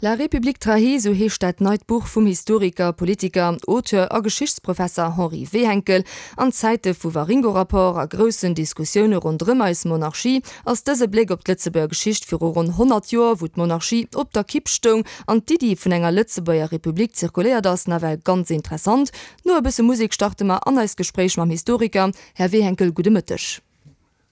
La République trahie, sou heescht dat neit Buch vum Historiker, Politiker, Auteur a Geschichtsprofesser Henri Wehenkel. An Zäite vu Waringo-Rapport a groussen Diskussioune ronderëm eis Monarchie ass dëse Bléck op d'Lëtzebuerger Geschicht viru ronn 100 Joer, wou d'Monarchie op der Kipp stoung an d'Iddi vun enger Lëtzebuerger Republik zirkuléiert ass, nawell ganz interessant. No e bësse Musek starte mer an eist Gespréich mam Historiker. Här Wehenkel, gudde Mëtteg.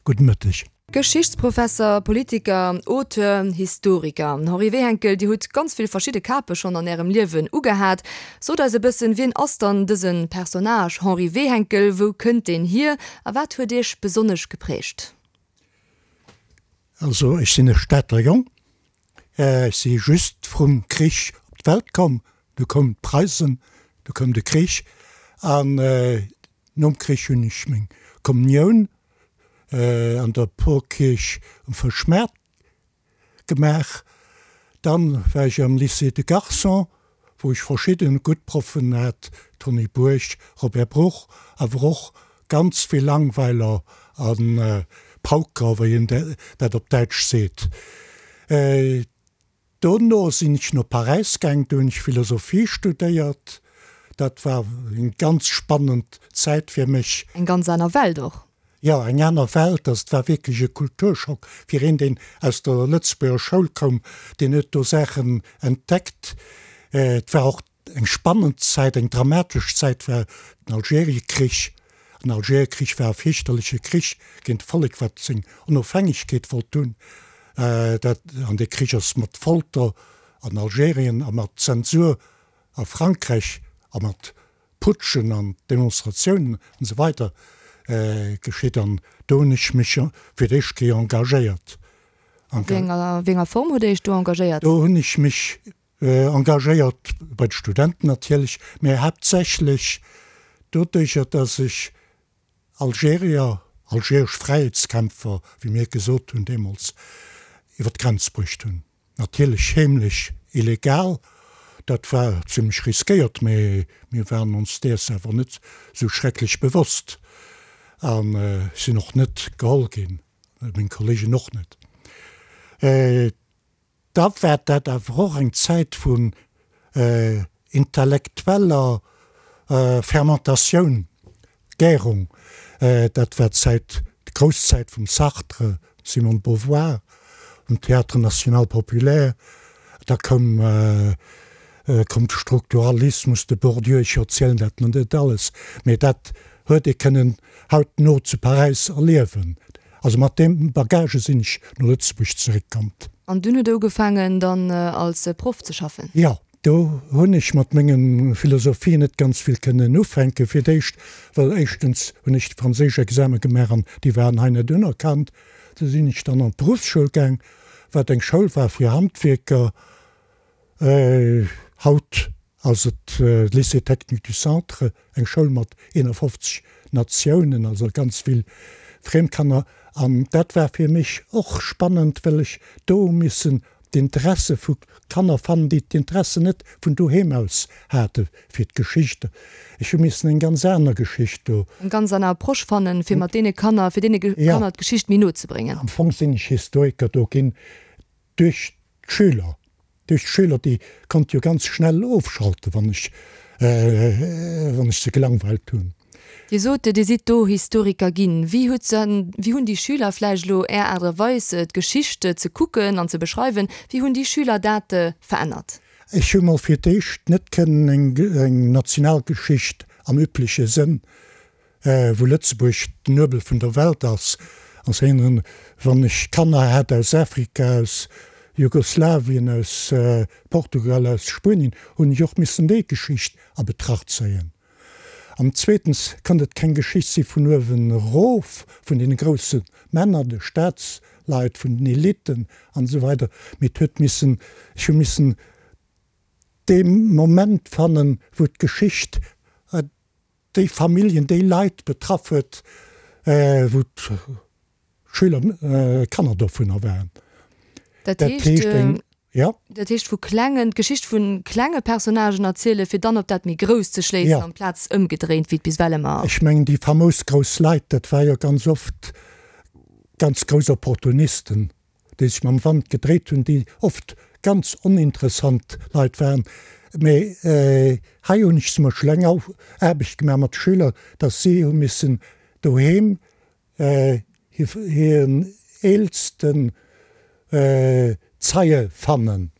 Gudde Mëtteg. Geschichtsprofesser, Politiker, Auteur, Historiker. Henri Wehenkel, Dir hutt ganz vill verschidde Kape schonn an Ärem Liewen ugehat. Sot eis e bëssen, wien ass dann dëse Personnage Henri Wehenkel, wou kënnt deen hier a wat huet Iech besonnesch geprägt? Also ech sinn e Stater Jong. Ech si just vrum Krich op d'Welt komm. Du koumen d'Preisen, du koum de Krich an Nom Krich hunn ech meng Kommunioun an der Porkierch um Fëschmaart gemaach. Dann war ech am Lycée de Garçons, wou ech verschidden gutt Proffen hat, Tony Bourg, Robert Bruch, awer och ganz vill Langweiler a Pauker, wéi een dat op Däitsch seet. Dono sinn ech no Paräis gaang, do hunn ech Philosophie studéiert. Dat war eng ganz spannend Zäit fir mech. Eng ganz aner Welt och. Jo, eng aner Welt. Also et war wierklech e Kulturschock fir een, deen aus der Lëtzebuerger Schoul koum, deen huet do Saachen entdeckt. Et war och Eng spannend Zäit, eng dramatesch Zäit war den Algeriekrich. Den Algeriekrich war e fierchterleche Krich géint e Vollek, wat seng Onofhängegkeet wollt hunn. Dat, an dee Krich ass mat Folter an Algerien a mat Zensur a Frankräich a mat Putschen an Demonstratiounen an esou weider geschitt. An do hunn ech mech fir d'éischt Kéier engagéiert. A wéi enger Form hutt Dir Iech do engagéiert? Do hunn ech mech Engagéiert bei de Studenten natierlech, mä haaptsächlech doduercher, datt ech Algerier, algeresch Fräiheetskämpfer, wéi mir gesot hunn deemools, iwwer d'Grenz bruecht hunn. Natierlech heemlech, illegal, dat war zimmlech riskéiert, mä mir waren ons däers awer net esou schrecklech bewosst a sinn och net geholl ginn, meng Kollegen och net. Da war dat awer och eng Zäit vun intellektueller Fermentatioun, Gärung. Dat war d'Zäit, d'grouss Zäit vum Sartre, Simone de Beauvoir, vum Théâtre National Populaire. Da koum koum de Strukturalismus, de Bourdieu, ech erzielen dat mer net alles, mee dat huet ee kënnen hautno zu Paräis erliewen. Also mat deem Bagage sinn ech no Lëtzebuerg zeréckkommt. An dunn hutt Der ugefaangen dann als Proff ze schaffen? Jo, do hunn ech mat menge Philosophie net ganz vill kënnen ufänken. Fir d'éischt, well éischtens hunn ech de franséisch Exame gemaach an déi waren hei net unerkannt. Du sinn ech dann an d'Beruffsschoul gaang, wat eng Schoul war fir Handwierker. Haut ass et Lycée Technique du Centre, eng Schoul mat 51 Natiounen, also ganz vill Friemkanner. An dat war fir mech och spannend, well ech do hu missen d'Interesse vu Kanner fannen, déi d'Interesse net vun doheem aus hate fir d'Geschicht. Ech hu missen eng ganz aner Geschicht do. Eng ganz aner Approche fannen, fir mat deene Kanner, fir deene Kanner d'Geschicht méi no ze bréngen. Am Fong sinn ech Historiker do ginn duerch d'Schüler. Duerch d'Schüler, déi konnt jo ganz schnell ofschalten, wann ech, wann ech se gelangweilt hunn. Dir sot, Dir sidd do Historiker ginn. Wéi hutt se, wéi hunn déi Schüler vläicht elo Är Aart a Weis, d'Geschicht ze kucken an ze beschreiwen, wéi hunn déi Schüler dat verännert? Ech hu mol fir d'éischt net kënnen eng, eng Nationalgeschicht am übleche Sënn wou Lëtzebuerg den Nuebel vun der Welt ass, ass een, wann ech Kanner hat aus Afrika, aus Jugoslawien, aus Portugal, aus Spuenien, hunn ech och missen déi Geschicht a Betracht zéien. An zweetens konnt et keng Geschicht si vun uewen erof, vun deene grousse Männer, de Staatsleit, vun den Eliten an esou weider, mee et huet missen, ech hu missen dee Moment fannen, wou d'Geschicht déi Familljen, déi Leit betraff huet, wou d'Schüler, Kanner dovunner waren. Dat heescht eng, jo. Dat heescht vu klengen, d'Geschicht vu klenge Personnagen erzielen, fir dann op dat méi Grousst ze schléissen, amplaz ëmgedréint, wéi et bis ewell ëmmer. Ech mengen, déi famous grouss Leit, dat war jo ganz oft ganz grouss Opportunisten, déi sech mam Wand gedréit hunn, déi oft. ganz oninteressant Leit waren. Mee hei hunn ech zum Beispill eng Aarbecht gemaach mat de Schüler, datt si hu missen doheem hiren eelsten Zeie fannen,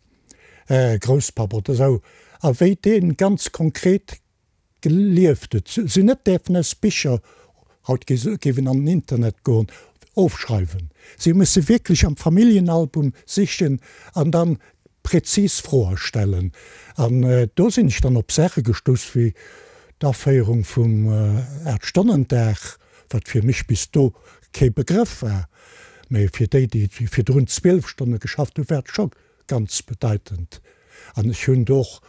Grousspapp oder esou, a wéi dee ganz konkret gelieft huet. Si hunn net däerfen aus Bicher, haut géif een an den Internet goen, ofschreiwen. Si hu musse wierklech am Familljenalbum sichen an dann prezis Froe stellen. An do sinn ech dann op Saache gestouss wéi d'Aféierung vum Aachtstonnendag, wat fir mech bis do kee Begrëff war, mä fir déi, déi virdrun 12 Stonne geschafft hunn, war et scho ganz bedeitend. An ech hunn do och,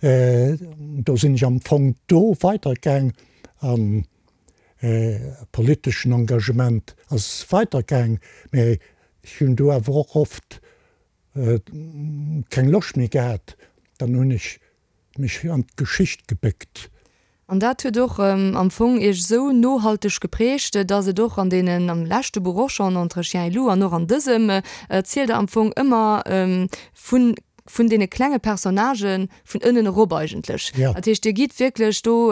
do sinn ech am Fong do weidergaang an politeschen Engagement ass weidergaang, mä ech hunn do awer och oft keng Loscht méi gehat, dann hunn ech mech an d'Geschicht gebéckt. An dat huet och am Fong Iech esou nohalteg geprägt, dass et och an deenen, am leschte Buch och schonn, Entre chien et loup, an och an dësem, erzielt Der am Fong ëmmer vun, vun deene klenge Personnagen vun ënnen erop eigentlech. Dat heescht, Dir gitt wierklech do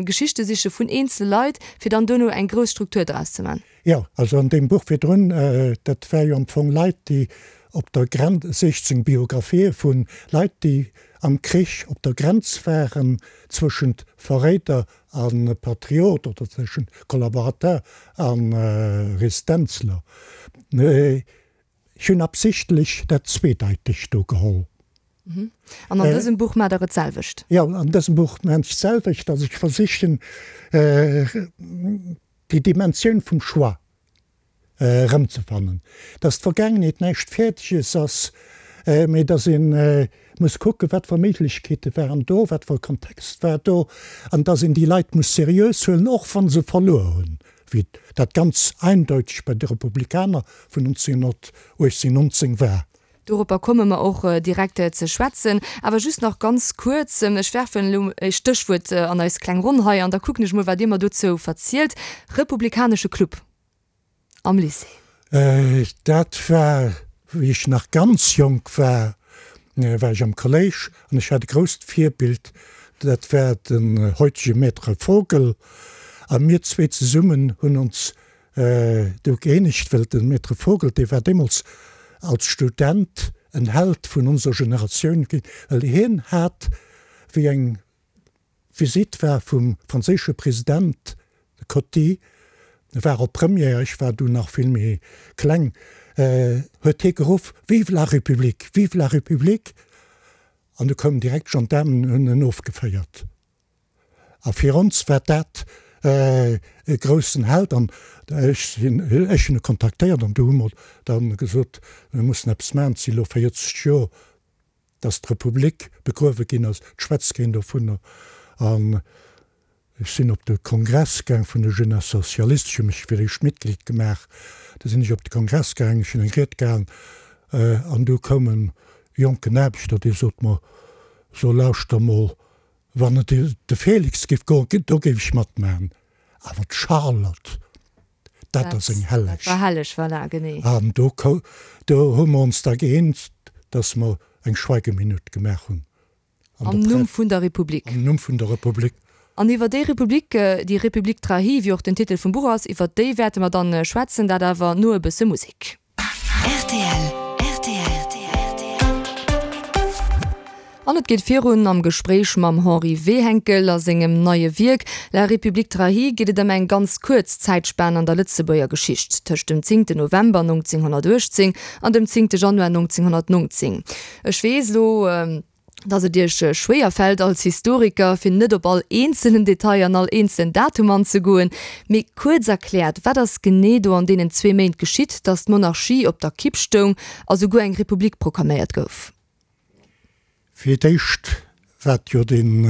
Geschichte siche vun eenzele Leit, fir dann duerno eng grouss Struktur draus ze man. Jo, also an deem Buch virdrun, dat war jo am Fong Leit, déi op der Grenz, 16 Biographië vu Leit, déi am Krich op der Grenz waren zwëschent Verréider a Patriot oder zwëschent Kollaborateur a Resistenzler. Ech hunn absichtlech dat Zweedeitegt do geholl. An an dësem Buch maacht Der et d'selwecht? Jo, an dësem Buch maachen ech d'selwecht, dass ech versichen, déi Dimensioun vum Choix erëmzefannen, dass d'Vergaangenheet näischt Fäerdeges ass, mee dass ee muss kucken, wat fir Méiglechkeete waren do, wat fir e Kontext war do, an dass een déi Leit muss seriös huelen, och wa se verluer hunn, wéi dat ganz eindeuteg bei de Republikaner vun 1918, 19 war. Doropper komme mer och direkt ze schwätzen. Awer just nach ganz kuerz, ech werfen elo e Stéchwuert an eis kleng Ronn hei an da kucken ech mol, wat Dir mer dozou verzielt. Republikanesche Club am Lycée. Dat war, wéi ech nach ganz jonk war, war ech am Kolléisch an ech hat e grousst Virbild, dat war den heutege Maître Vogel. A mir zwee zesummen hunn ons Do gëeenegt, well de Maître Vogel, dee war deemools als Student en Held vun onser Generatioun ginn, well hien hat, wéi eng Visitt war vum franséische President, de Coty, e war op Première, ech war du nach vill méi kleng, huet hie geruff, Vive la République! Vive la République! An du koumen direkt d'Gendaarmen an hunn en ofgeféiert. A fir ons war dat e groussen Held an ech sinn, ech hunn e kontaktéiert an du hu mer dann gesot, mir mussen eppes maachen, et si lo 40 Joer, datt d'Republik begruewe ginn ass, et schwätzt keen dovunner. An ech sinn op de Kongress gaang vun de Jeunesses Socialistes, ech hu mech fir d'éischt Mitglied gemaach, du sinn ech op de Kongress gaang, ech hunn eng Ried gehalen an du koum e jonken Aarbechter, dee sot mer, so lauschter mol, Wann et de Félix géif goen, do géif ech matmachen, awer d'Charlotte, dat ass eng Helleg. Dat war helleg, voilà, genee. An do do hu mer ons da gëeent, dass mer eng Schweigeminutt gemaach hunn. Am Numm vun der Republik. Am Numm vun der Republik. An iwwer déi Republik, déi République trahie, wéi och den Titel vum Buch ass, iwwer déi wäerte mer dann schwätzen, dat awer no e bësse Musek. Rtl, rtl. An et geet virun am Gespréich mam Henri Wehenkel. A sengem neie Wierk La République trahie geet et ëm eng ganz kuerz Zäitspan an der Lëtzebuerger Geschicht, tëscht dem zéngten November 1918 an dem zéngte Januar 1919. Ech weess elo, dass et Iech schwéier fält als Historiker, fir net op all eenzelen Detail an all eenzelen Datum anzegoen, mee kuerz erkläert, wat ass genee do an deenen zwee Méint geschitt, dass d'Monarchie op der Kipp stoung a souguer eng Republik proklaméiert gouf? Fir d'éischt wat jo den,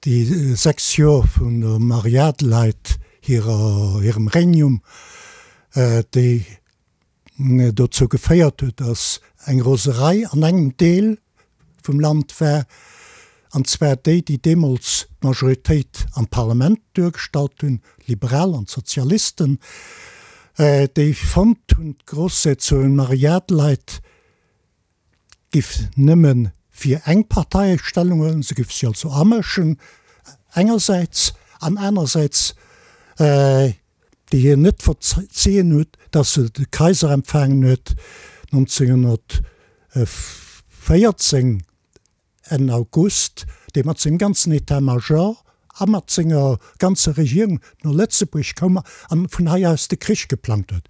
déi 6 Joer vun der Marie-Adelheid hirer, hirem Regnum, déi dozou geféiert huet, datt eng Roserei an engem Deel vum Land war, an zwar déi, déi deemools d'Majoritéit am Parlament duergestallt hunn, d'Liberal an d'Sozialisten, déi fonnt hunn, d'Grossherzogin Marie-Adelheid. giff nëmme fir eng Partei Stellung huelen, se giff sech also amëschen engersäits, an anersäits déi hien net verzien huet, datt se de Kaiser empfaangen huet 1914 Enn August, dee mat sengem ganzen État-major a mat senger ganzer Regierung no Lëtzebuerg koum an vun hei aus de Krich geplangt huet.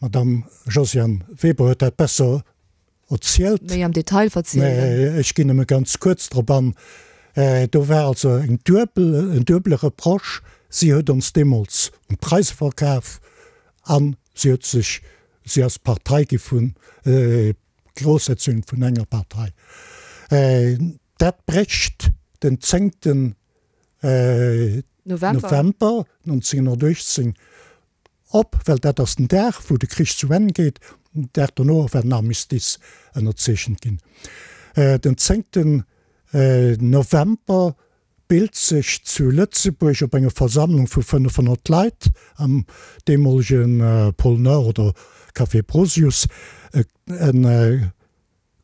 D'Madame Josiane Weber huet dat besser erzielt. Méi am Detail verzielt. Mä ech ginn nëmme ganz kuerz drop an. Do war also eng duebel, en duebele Reproche, Si huet ons deemools un d'Preise verkaf a si huet sech, si ass Partei gi vun, Grossherzogin vun enger Partei. Dat brécht den zéngten November 1918 op, well dat ass den Dag, wou de Krich zu Enn geet. Den Dag dono war den Armistice ënnerzeechent ginn. Den zéngten November bilt sech zu Lëtzebuerg op enger Versammlung vu 500 Leit am deemolege Pôle Nord oder Café Brosius e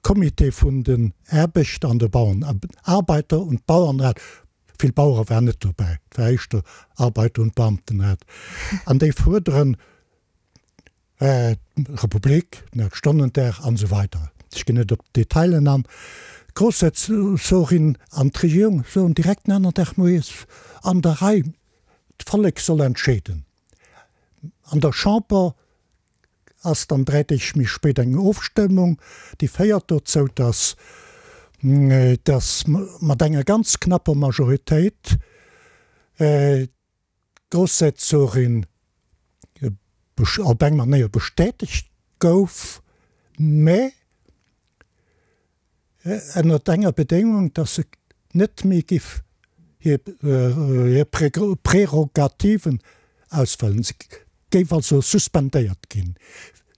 Comité vun den Aarbechter an de Bauern, Arbeiter und Bauernrat, vill Bauere waren net dobäi, et war éischter Arbeiter und Beamtenrat, an déi fuerderen, Republik, den Aachtstonnendag an esou weider. Ech ginn net op d'Detailen an. D'Groussherzogin an d'Regierung soen direkt den aneren Dag moies an der Rei, d'Vollek soll entscheeden. An der Chamber ass dann 3 Deeg méi spéit eng Ofstëmmung, déi féiert dozou, datt datt mat enger ganz knapper Majoritéit d'Grossherzogin op eng Manéier bestätegt gouf, mä ënnert enger Bedéngung, datt se net méi giff hir Prärogativen ausfëllen. Se géif also suspendéiert ginn,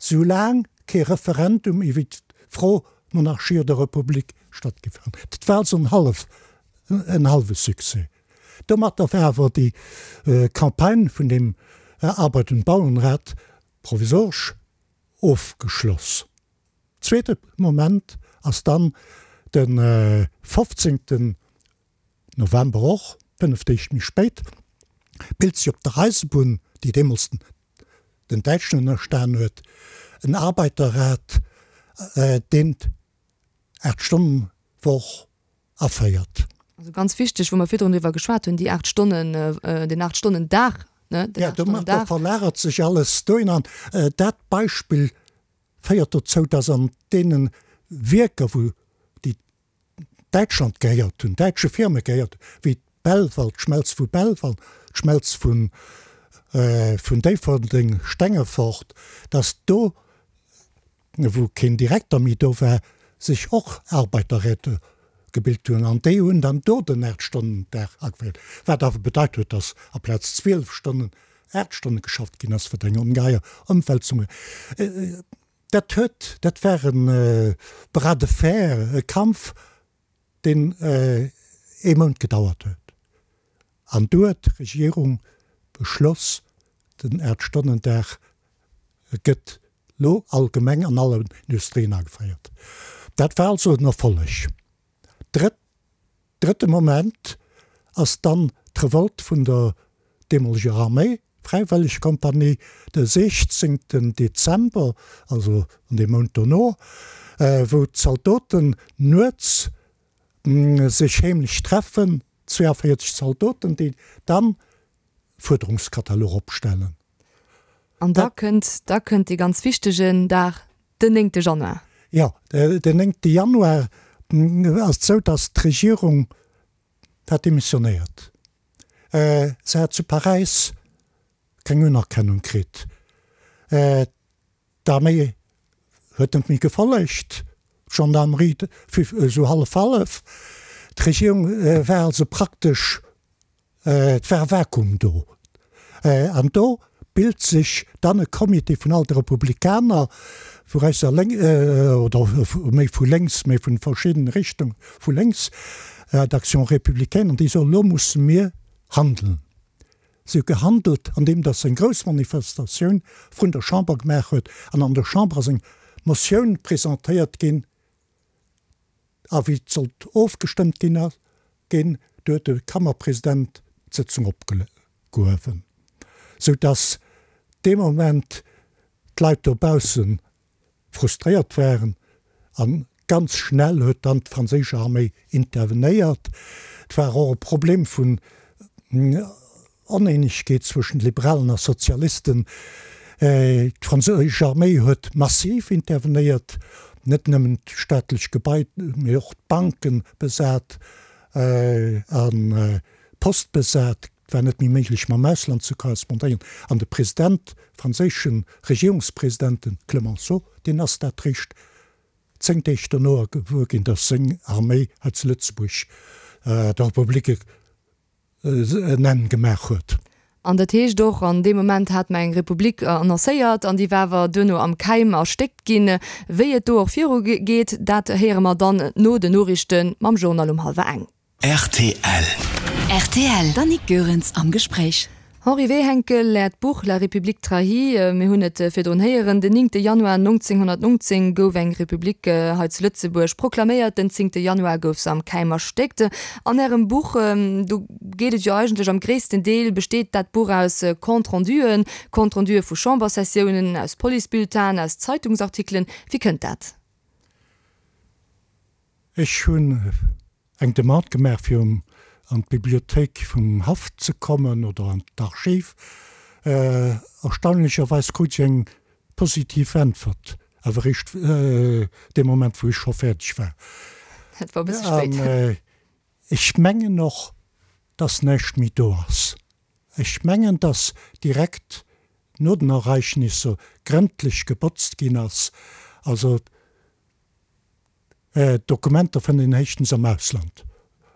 soulaang kee Referendum iwwer d'Fro Monarchie oder Republik stattgiff. Dat war also en hallwe Succès. Domatter war awer déi Campagne vun dem Arbeit und Bauernrat provisoresch ofgeschloss. Zweete Moment ass dann de 15. November, och 5 Deeg méi spéit, bilt sech op der Eisebunn, déi deemools den Däitschen ënnerstan huet, en Arbeiterrat, deen d'Aacht-Stonnen-Woch aféiert. Also ganz wichteg, wou mer virdrun driwwer geschwat hunn, déi 8 Stonnen, den 8 Stonnen Dag, ne, den 8 Stonnen Dag. Jo, domat verlagert sech alles dohin an dat Beispill féiert dozou, dass an deene Wierker, wou déi Däitschland gehéiert hunn, däitsche Firme gehéiert hunn, wéi Belval, d'Schmelz vu Belval, d'Schmelz vun Déifferdeng, Stengefort, dass do wou keen Direkter méi do war, sech och Arbeiterräte gebilt hunn an déi hunn dann do den Aachtstonnendag ageféiert, wat awer bedeit huet, datt aplaz 12 Stonnen 8 Stonne geschafft ginn ass, wat eng ongeheier Ëmwälzung war. Dat huet, dat war e Bras de fer, e Kampf, deen ee Mount gedauert huet. An du huet d'Regierung beschloss, den Aachtstonnendag gëtt lo allgemeng an allen Industrien ageféiert. Dat war also en Erfolleg. Drëtt, drëtte Moment ass dann d'Revolte vun der deemoleger Arméi, Fräiwëllegkompanie, de 16 Dezember, also an deem Mount dono, wou d'Zaldoten nuets sech heemlech treffen, 42 Zaldoten, déi dann Fuerderungskatalog opstellen. An da kënnt, da kënnt dee ganz wichtegen Dag, den néngte Januar. Jo, den néngte Januar ass et esou, datt d'Regierung hat demissionéiert. Se hat zu Paräis keng Unerkennung kritt. D'Arméi huet net méi gefollegt, d'Gendarmerie esou hallef-hallef. D'Regierung war also praktesch, et war e Vakuum do. An do bilt sech dann e Comité vun all de Republikaner, vu rechts a lénks, oder méi vu lénks, méi vun verschiddene Richtunge vu lénks, d'Action républicaine, an déi soen, elo musse mir handeln. Si huet gehandelt, andeem datt se eng grouss Manifestatioun vrun der Chamber gemaach huet. An an der Chamber ass eng. Motioun presentéiert ginn a wéi et sollt ofgestëmmt ginn, ginn, du huet de Kammerpresident d'Sëtzung opgehuewen, sou dass dee Moment d'Leit dobausse frustréiert waren a ganz schnell huet dann d'franséisch Arméi intervenéiert. Et war och e Problem vun Oneenegkeet zwëschen Liberalen a Sozialisten. D'franséisch Arméi huet massiv intervenéiert, net nëmmen d'staatlech Gebai, mee och d'Banke besat an d'Post besat. Et war net méi méiglech mam Ausland ze korrespondéieren. An de President, franséische Regierungspresident, de Clemenceau, deen ass dat réischt 10 Deeg dono gewuer ginn, datt seng Arméi hei zu Lëtzebuerg der Republik en Enn gemaach huet. An dat heescht och, an deem Moment hat mer eng Republik annoncéiert an déi war awer duerno am Keim erstéckt ginn. Wéi et do och viru geet, dat héiere mer dann no den Noriichte mam Journal um hallwer eng. Rtl. Rtl, D'Annick Goerens am Gespréich. Henri Wehenkel, Äert Buch La République trahie, mir hunn et virdrun héieren, den 9 Januar 1919 gouf eng Republik hei zu Lëtzebuerg proklaméiert, den 10 Januar gouf se am Keim erstéckt. An Ärem Buch, do geet et jo eigentlech am gréissten Deel besteet dat Buch aus Compte-renduen, Compte-rendue vu Chambersessiounen, aus Policebulletinen, aus Zeitungsartikelen. Wéi kënnt dat? Ech hunn eng Demande gemaach fir an d'Bibliothéik vum Haff ze kommen oder an d'Archiv. Erstaunlecherweis krut ech eng positiv Äntwert, awer eréischt dee Moment wou ech scho fäerdeg war. Dat war e bësse spéit. An ech mengen och, dass näischt méi do ass. Ech mengen, dass direkt no den Ereignisser grëndlech gebotzt ginn ass. Also Dokumenter fënnt een héichtens am Ausland.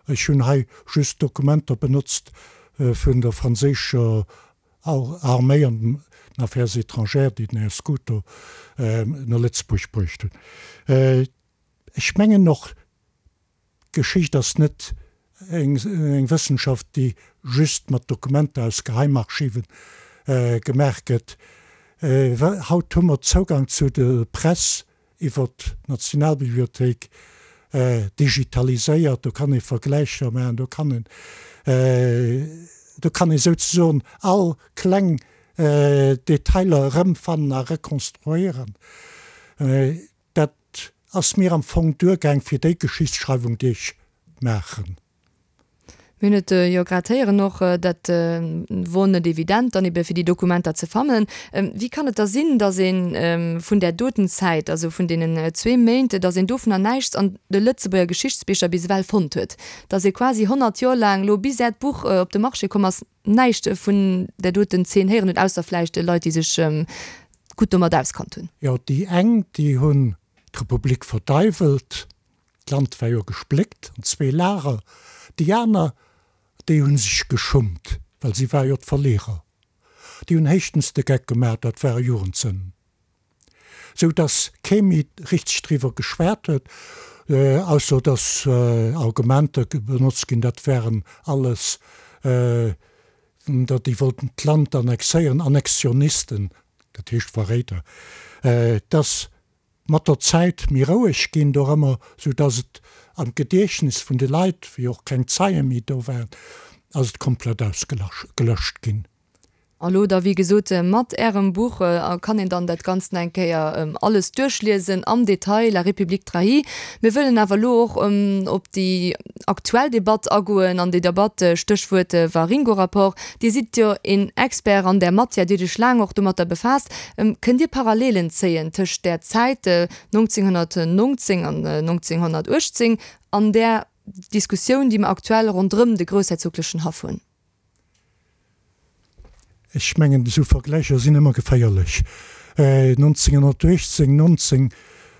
Ech hunn hei just Dokumenter benotzt vun der franséischer Arméi an den Affaires étrangères, déi den Här Scuto no Lëtzebuerg bruecht hunn. Ech mengen och, D'Geschicht ass net eng Wëssenschaft, déi just mat Dokumenter aus Geheimarchiven gemaach gëtt. Haut hu mer Zougang zu der Press iwwer d'Nationalbibliothéik, digitaliséiert. Do kann ee Vergläicher maachen, do kann een, do kann ee souzesoen all kleng Detailer erëmfannen a rekonstruéieren. Dat ass mir am Fong duergaang fir déi Geschichtsschreiwung, déi ech maachen. Mir hunn et jo grad héieren och, dat wor net evident dann ebe fir déi Dokumenter ze fannen. Wéi kann et da sinn, datt ee vun där doten Zäit, also vun deenen zwee Méint, datt een dovunner näischts an de Lëtzebuerger Geschichtsbicher bis ewell fonnt huet? Datt ee quasi 100 Joer laang, elo bis Äert Buch op de Marché komm ass, näischt vun där doten Zeen héieren huet, ausser vläicht Leit, déi sech gutt domat auskannt hunn. Jo, déi eng, déi hunn d'Republik verdeiwelt, d'Land war jo gespléckt an zwee Lager, déi aner, déi hu sech geschummt, well si ware jo d'Verlierer. Déi hunn héichtens de Geck gemaach, dat ware Jugendsënnen. Sou dass kee méi richteg driwwer geschwat huet, ausser dass Argumenter benotzt ginn, dat wären alles, déi wollten d'Land annexéieren, Annexionisten, dat heescht Verréider. Et ass mat der Zäit méi roueg ginn dorëmmer, sou dass et am Gediechtnes vun de Leit, wéi och keng Zeie méi do waren, ass et komplett ausgelöscht ginn. A lo da wéi gesot mat Ärem Buch kann een dann dat Ganzt nach eng Kéier alles duerchliesen am Detail, La République trahie. Mir wëllen awer elo och op déi aktuell Debatt agoen an déi Debatt, Stéchwuert Waringo-Rapport. Dir sidd jo een Expert an där Matière, Dir hutt Iech laang och domatter befaasst. Kënnt Dir Parallelen zéien tëscht där Zäit 1919 an 1918 an där Diskussioun, déi mer aktuell ronderëm de groussherzoglechen Haff hunn? Ech mengen, esou Vergläicher sinn ëmmer geféierlech. 1918, 19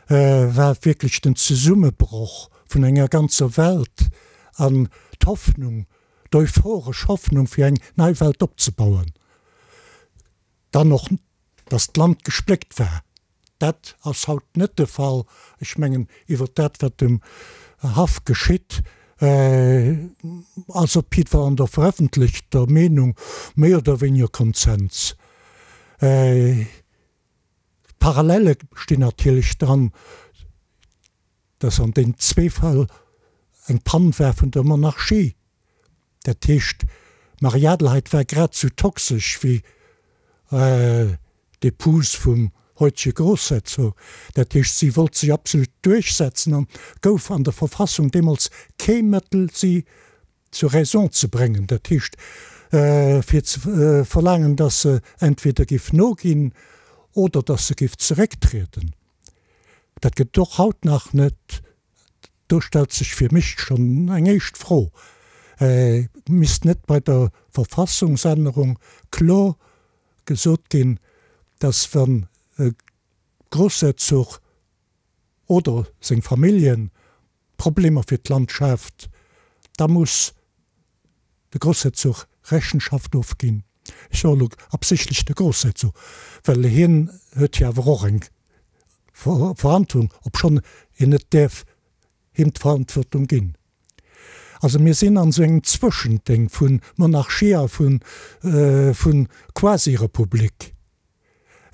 war wierklech den Zesummebroch vun enger ganzer Welt an d'Hoffnung, d'euphoresch Hoffnung fir eng nei Welt opzebauen. Dann och, datt d'Land gespléckt war. Dat ass haut net de Fall. Ech mengen, iwwert dat, wat um Haff geschitt, ass op jiddwer Fall an der verëffentlechter Meenung méi oder wéiniger Konsens. Parallele stinn natierlech dran, dass an deenen zwee Fäll eng Pann war vun der Monarchie. Dat heescht, d'Marie-Adelheid war grad sou toxesch wéi d'Epouse vum heutege Grossherzog. Dat heescht, si wollt sech absolut duerchsetzen an gouf an der Verfassung deemools kee Mëttel, si zur Raison ze bréngen, dat heescht, fir ze verlaangen, dass se entweder géif noginn oder dass se géif zerécktrieden. Dat gëtt et och haut nach net. Do stellt sech fir mech schonn eng éischt Fro, Misst net bei der Verfassungsännerung kloer gesot ginn, dass wann e Grossherzog oder seng Familljen Problemer fir d'Land schaaft, da muss de Grossherzog Rechenschaft ofginn? Ech soe elo absichtlech de Grossherzog, well hien huet jo awer och eng Verantwortung, obschonn een net däerf him d'Verantwortung ginn. Also mir sinn an esou engem Zwëschendéng vu Monarchie a vu Quasi-Republik,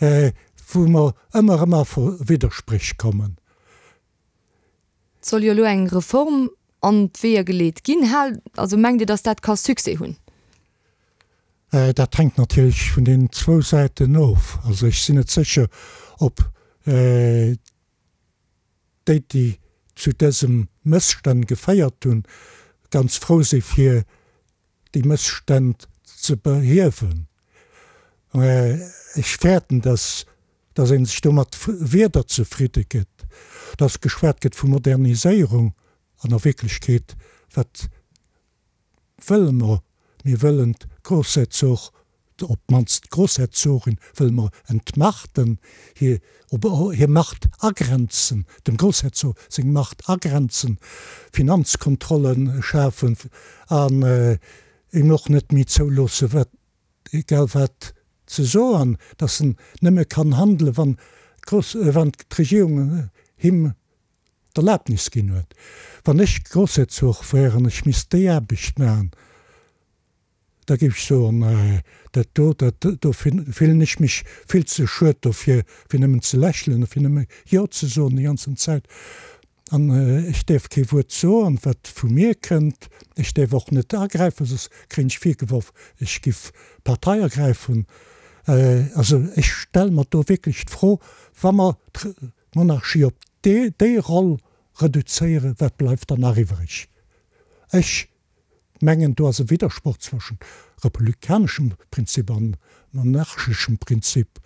wou mer ëmmer erëm a Widderspréch kommen. Et soll jo elo eng Reform an d'Weeër geleet ginn. Haalt, also mengt Dir, datt dat ka Succès hunn? Dat hänkt natierlech vun deenen zwou Säiten of. Also ech sinn net sécher, ob déi, déi zu dësem Mësstänn geféiert hunn, ganz frou si fir déi Mësstänn ze behiewen. Ech fäerten, dass dass ee sech do mat Wierder zefridde gëtt, dass geschwat gëtt vu Moderniséierung an a Wierklechkeet, wat wëlle mer? Mir wëllen d'Grossherzog, op d'mannst d'Grossherzogin wëlle mer entmachten, hir, op hir Macht agrenzen, dem Grossherzog seng Macht agrenzen, Finanzkontrolle schafen an him och net méi zouloosse wat, egal wat ze soen, datt en nëmme kann handelen, wann wann d'Regierung him d'Erlaabnis ginn huet. Wann ech Grossherzog wär an ech misst déi Aarbecht maachen, da géif ech soen, dat do, dat do fillen ech mech vill ze schued dofir, fir nëmmen ze lächelen a fir nëmme Jo ze soen déi ganzen Zäit. An ech däerf kee Wuert soen, wat vu mir kënnt. Ech däerf och net agräifen, soss kréien ech virgeworf, ech giff Partei ergräifen. Also ech stelle mer do wierklech d'Fro, wa mer d'Monarchie op déi Roll reduzéieren, wat bleift dann nach iwwreg? Ech mengen, do ass e Widdersproch zwëschent republikaneschem Prinzip an monarcheschem Prinzip,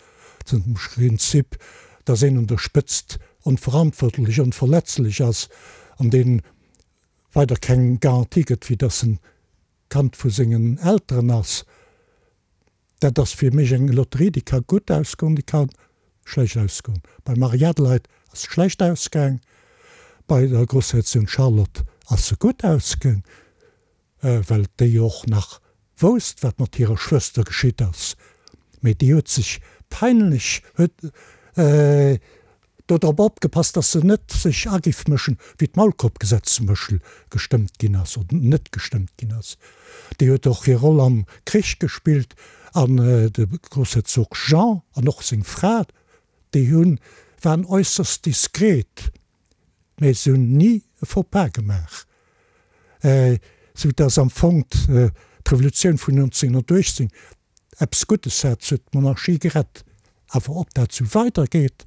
dem Prinzip, dass een un der Spëtzt onverantwortlech, onverletzlech ass an dee weider keng Garantie gëtt, wéi dass en Kand vu sengen Elteren ass. Dat ass fir mech eng Lotterie, déi ka gutt ausgoen, déi ka schlecht ausgoen. Beim Marie-Adelheid ass se schlecht ausgaang, bei der Grossherzogin Charlotte ass se gutt ausgaang, well déi och nach wousst, wat mat hirer Schwëster geschitt ass. Mee déi huet sech peinlech, huet do drop opgepasst, dass se net sech agiff mëschen, wéi d'Maulkorbgesetz zum Beispill gestëmmt ginn ass oder net gestëmmt ginn ass. Déi huet och hir Roll am Krich gespillt an de Grossherzog Jean an och seng Fra, déi hunn, waren äusserst diskret, mä se hunn ni e Faux-pas gemaach, sou dass am Fong d'Revolutioun vun 1918 Eppes Guddes hat, se huet d'Monarchie gerett. Awer ob dat sou weider geet,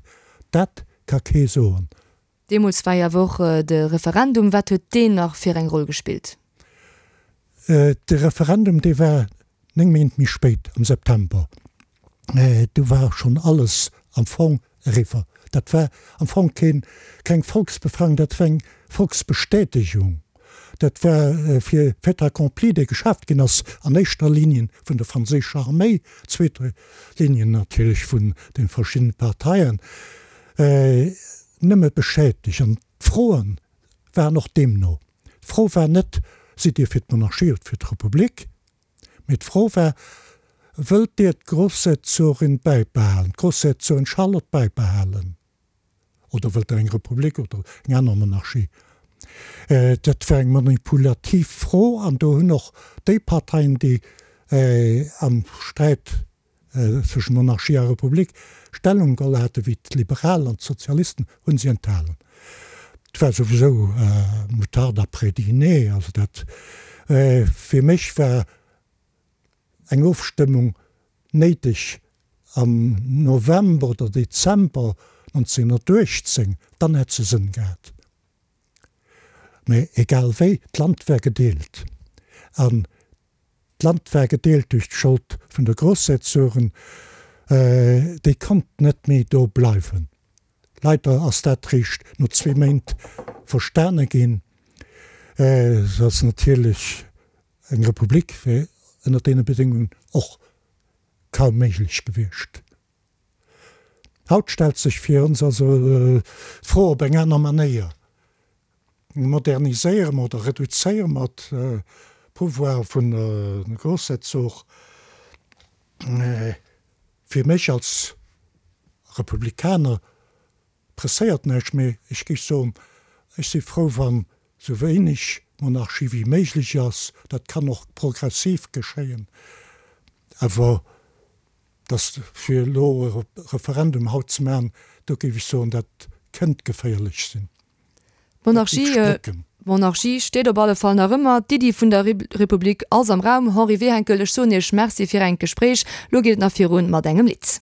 dat ka kee soen. Deemools war jo awer och de Referendum. Wat huet deen nach fir eng Roll gespillt? De Referendum, dee war 9 Méint méi spéit, am September. Do war schonn alles am Fong eriwwer. Dat war am Fong keen, keng Volksbefragung, dat war eng Volksbestätegung. Dat war fir Fait accompli, dee geschaaft ginn ass an éischter Ligne vun der franséischer Arméi, zweeter Ligne natierlech vun de verschiddene Parteien, nëmme bestätegt. An d'Froe waren och deemno. D'Fro war net, Sidd Dir fir d'Monarchie oder fir d'Republik? Mee d'Fro war, Wëllt Dir d'Grossherzogin bäibehalen, d'Grossherzogin Charlotte bäibehalen, oder wëllt Der eng Republik oder eng aner Monarchie? Dat war eng manipulativ Fro an do hunn och déi Parteien, déi am Sträit zwëschen Monarchie a Republik. Stellung geholl hate wéi d'Liberal an d'Sozialisten, hu si enthalen. Et war souwisou Moutarde après dîner, also dat fir mech war eng Ofstëmmung néideg am November oder Dezember 1918, dann hätt se Sënn gehat. Mä egal wéi, d'Land war gedeelt. An d'Land war gedeelt duerch d'Schold vun de Grossherzogen. Déi konnt net méi do bleiwen. Leider ass dat réischt no zwee Méint verstane ginn. Et ass natierlech eng Republik wär ënner deene Bedéngungen och kaum méiglech gewiescht. Haut stellt sech fir ons also d'Fro op eng aner Manéier, Moderniséiere mer oder reduzéiere mer d'Pouvoire vun de Grossherzog? Fir mech als Republikaner presséiert näischt, mee ech géif soen, ech si frou, wann esou wéineg Monarchie wéi méiglech ass. Dat kann och progressiv geschéien, awer Dass fir elo e Referendum haut ze maachen, do géif ech soen, dat kënnt geféierlech sinn. Dat géif splécken. D'Monarchie steet op alle Fall nach ëmmer, d'Iddi vun der Republik ass am Raum. Henri Wehenkel, ech soen Iech Merci fir engt Gespréich. Lo geet et nach virun mat engem Lidd.